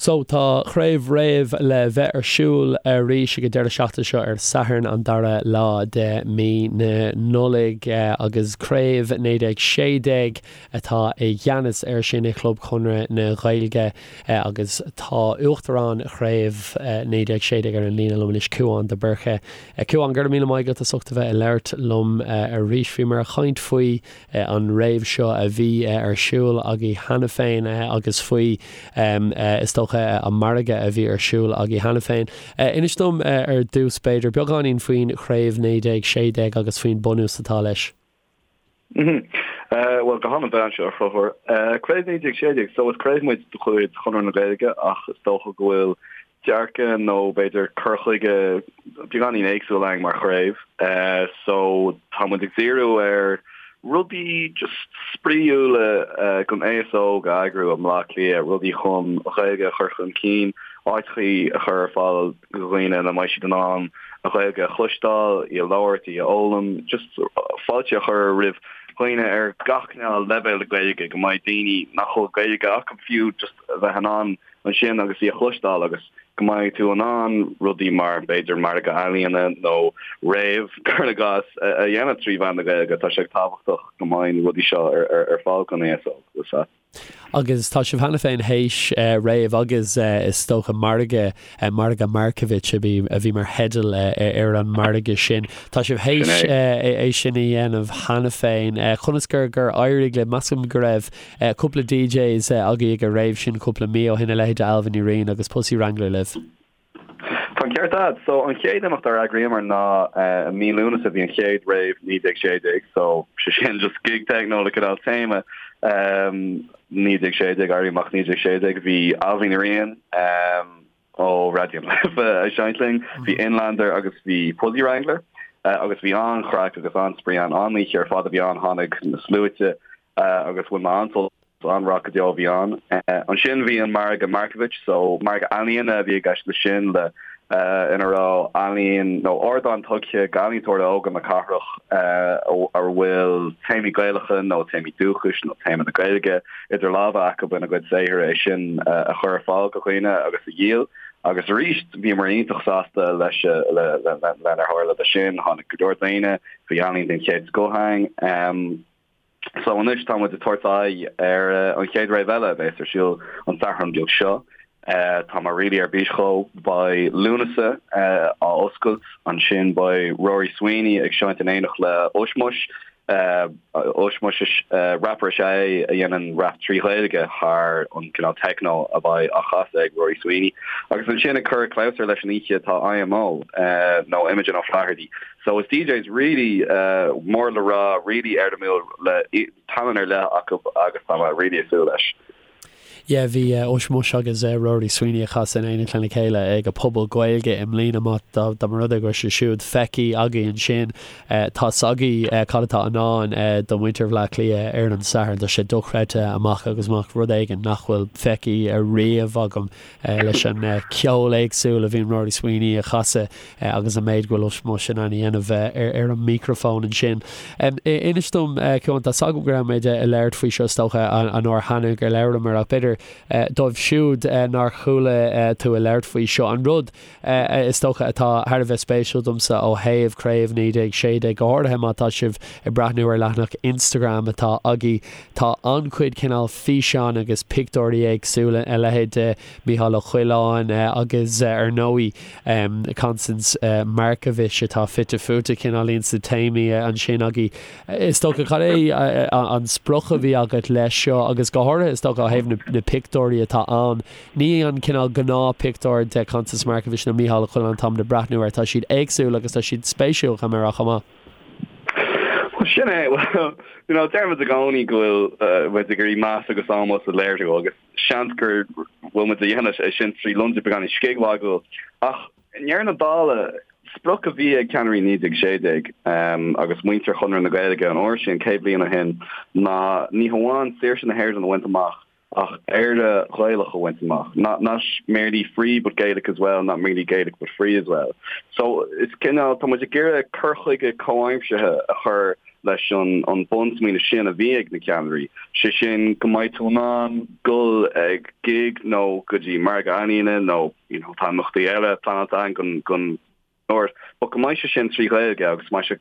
So, tá Craobh Rave le bheith ar siúl arís ag an deireadh seachtaine seo ar Satharn an dara lá de mí na Nollag agus Craobh 1916 atá i gceannas air sin i Chlub Chonradh na Gaeilge agus tá Uachtarán Chraobh 1916 ar an líne liom anois, Cúán de Búrca. Cúán, go raibh míle maith agat as ucht a bheith ag labhairt liom arís. Bhíomar ag caint faoi an rave seo a bhí ar siúl agaibh cheana féin agus faoi, is dócha, an margadh a bhí ar siúl agaibh cheana féin. Inis dom ar dtús, b'fhéidir, beagáinín faoin Chraobh 1916 agus faoin bunús atá leis. Bhuel, go han-mhaith anseo, a Chonchúir. Craobh 1916, so is craobh muid de chuid Chonradh na Gaeilge ach is dócha go bhfuil dearcadh nó b'fhéidir cur chuige beagáinín éagsúil againn mar chraobh. So tá muid ag díriú ar rudaí just spraíúla don aos óg a eagrú i mBleá Cliath, rudaí chun an Ghaeilge a chur chun cinn, áiteachaí a chur ar fáil do dhaoine ina mbeidh siad in ann an Ghaeilge a chloisteáil, í a labhairt, í a fhoghlaim, just fáilte a chur roimh dhaoine ar gach cineál leibhéal Gaeilge, go mbeidh daoine nach bhfuil Gaeilge acu fiú just a bheith in ann ansin agus í a chloisteáil agus go mbeidh tú in ann rudaí mar, b'fhéidir, margadh ealaíona nó rave, cuir i gcás, a dhéanamh trí mheán na Gaeilge. Tá sé tábhachtach go mbeidh na rudaí seo ar fáil don aos óg. Agus tá sibh cheana féin théis rave agus is dócha margadh, Margadh Markievicz a bhí a bhí mar theideal ar an margadh sin. Tá sibh théis é sin a dhéanamh cheana féin. Conas gur gur éirigh libh? Measaim go raibh Cúpla DJs agaibh ag an rave sin cúpla mí ó shin, a leithéid de Ailbhe Ní Riain agus Pussy Wrangler libh. Tá an ceart agat. So an chéad imeacht ar eagraíomar ná i mí Lúnasa bhí an chéad rave 1916 so sé sin just gig techno le cineál téama 1916, Éirí Amach 1916. Bhí Ailbhe Ní Riain, ó Raidió na Life ag seinnt linn. Bhí Inlander agus bhí Pussy Wrangler agus bhí an-chraic agus an-spraoi ann. An-oíche ar fad a bhí ann, tháinig na sluaite agus bhain mé an-sult, an-raic go deo a bhí ann. Ansin bhí an margadh Markievicz, so margadh ealaíona a bhí i gceist leis sin le ina raibh ealaín nó ardán tugtha d'ealaíontóirí óga na cathrach a bhfuil téamaí Gaelacha nó téamaí dúchais nó téama na Gaeilge idir lámha acu ina gcuid saothair é sin a chur ar fáil do dhaoine agus a dhíol. Agus arís, bhíomar iontach sásta leis lenar tharla leis sin. Tháinig go leor daoine, bhí ealaín den chéad scoth ann. So anois tá muid ag tabhairt aghaidh ar an chéad rave eile a bheas ar siúl an Satharn beag seo. Tá mé really ar bís dhó. Beidh Lúnasa á oscailt, ansin beidh Rory Sweeney ag seinnt in éineacht le Ushmush. Ushmush is rapper is ea é a dhéanann rap trí Ghaeilge thar an cineál techno a bheidh á chasadh ag Rory Sweeney. Agus ansin ag cur clabhsúr leis an oíche tá IMO nó Imogen O'Flaherty. So is DJs really mór le rá, really éirimiúil le tallann ar leith acu agus tá mé really ag súil leis. Yeah, bhí Ushmush agus Rory Sweeney ag casadh in éineacht lena chéile ag an Phuball Gaeilge i mbliana. Má dá mba rud é go raibh sé siúd feicthe agaibh ansin, tá's agaibh cad atá i ndán do mhuintir Bhaile Átha Cliath ar an Satharn. Tá sé dochreidte amach agus amach, rud éigin nach bhfuil feicthe ariamh agam leis an ceol éagsúil a bhíonn Rory Sweeney a chasadh agus an méid go bhfuil Ushmush in ann a dhéanamh ar an micreafón ansin. Inis dom, Cuán, tá's agam go raibh muid ag labhairt faoi seo is dócha an uair cheana gur labhramar ach b'fhéidir dóibh siúd nár chuala tú ag labhairt faoi seo, an rud is dócha atá thar a bheith spéisiúil domsa ó thaobh Craobh 1916, go háirithe má tá sibh ag breathnú ar leathanach Instagram atá agaibh, tá an-chuid cineál físeán agus pictiúirí éagsúla, a leithéid de Mícheál Ó Coileáin agus ar ndóigh Constance Markievicz atá fite fuaite cineáilín sna téamaí ansin agaibh. Is dócha, cad é an sprioc a bhí agat leis seo agus go háirithe is dócha ó thaobh na pictiúirí atá ann, ní an cineál gnáth-pictiúr de Constance Markievicz nó Mícheál Ó Coileáin atáimid ag breathnú air, tá siad éagsúil agus tá siad spéisiúil, caithfidh mé a rá chomh maith. Bhuel, sin é. Bhuel, you know, deirimid i gcónaí go bhfuil muid ag iarraidh meas agus ómós a léiriú agus seans go bhfuil muid a dhéanamh é sin trí lionsa beagáinín scigmhagúil. Ach i ndeireadh na dála, sprioc a bhí ag ceannairí 1916 agus muintir Chonradh na Gaeilge an uair sin, 100 bliain ó shin, ná ní hamháin saoirse na hÉireann a bhaint amach ach Éire Ghaelach a bhaint amach. Not not merely free but Gaelic as well, not merely Gaelic but free as well. So is cineál, tá muid ag iarraidh cur chuige comhaimseartha a chur. leis an an bunsmaoineamh sin a bhí ag na ceannairí, sé sin go mbeidh tú in ann dul ag gig nó go dtí margadh ealaíne nó you know tá imeachtaí eile pleanáilte againn don don but go mbeidh sé sin trí Ghaeilge agus go mbeidh sé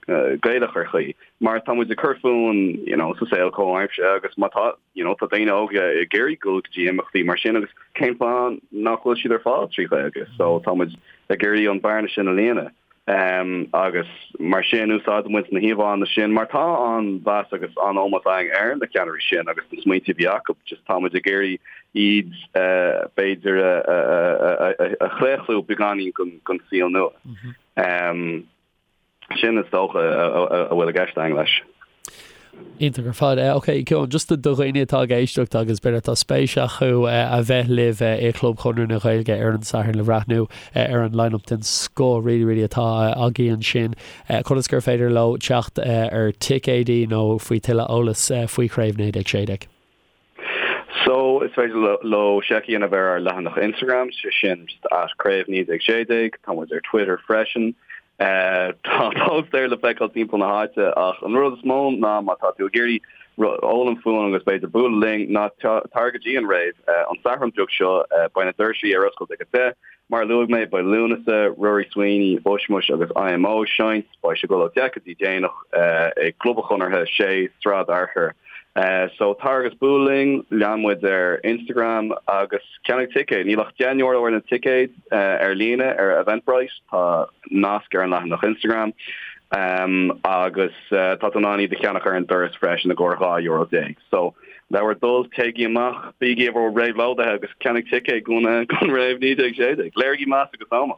Gaelach ar chaoi mar tá muid ag cur fúinn you know sa saol comhaimseartha agus má tá you know tá daoine óga ag iarraidh dul go dtí imeachtaí mar sin agus cén fáth nach bhfuil siad ar fáil trí Ghaeilge so tá muid ag iarraidh an bearna sin a líonadh. Agus mar sin úsáideann muid na híomhánna sin mar tá an-mheas agus an-ómós againn ar na ceannairí sin agus na smaointe a bhí acu, just tá muid ag iarraidh iad b'fhéidir a chlaochlú beagáinín don saol nua. Sin is dócha a bhfuil i gceist againn leis. Iontach ar fad. Ok, Cian, just do dhaoine atá ag éisteacht agus b'fhéidir atá spéis acu a bheith libh i gClub Chonradh na Gaeilge ar an Satharn le bhreathnú ar an line-up den scoth really really atá agaibh ansin, conas gur féidir leo teacht ar ticéidí nó faoi tuilleadh eolas faoi Chraobh 1916? So, is féidir leo seic a dhéanamh ar ár leathanach Instagram, sé sin just at Craobh 1916, tá muid ar Twitter freisin. Tá póstaeir le feiceáil timpeall na háite ach an rud is mó ná má tá tú ag iarraidh foghlaim fúinn agus b'fhéidir bualadh linn ná tar go dtí an rave an Satharn beag seo, beidh na doirsí ar oscailt ag a 10. Mar a luaigh mé, beidh Lúnasa, Rory Sweeney, Ushmush agus IMO ag seinnt. Beidh sé ag dul ó 10 go dtí déanach i gClub an Chonartha, 6 Sráid Fhearchair. So tar agus buail linn, lean muid ar Instagram agus ceannaigh ticéad. Níl ach €10 ar na ticéid ar líne ar Eventbrite, tá nasc ar an leathanach Instagram agus tá tú in ann iad a cheannach ar an doras freisin i gcomhair €12 déag. So le bhur dtoil, téigí amach, bígí i bhur réabhlóidithe agus ceannaigh ticéad don rave 1916. Léirigí meas agus ómós.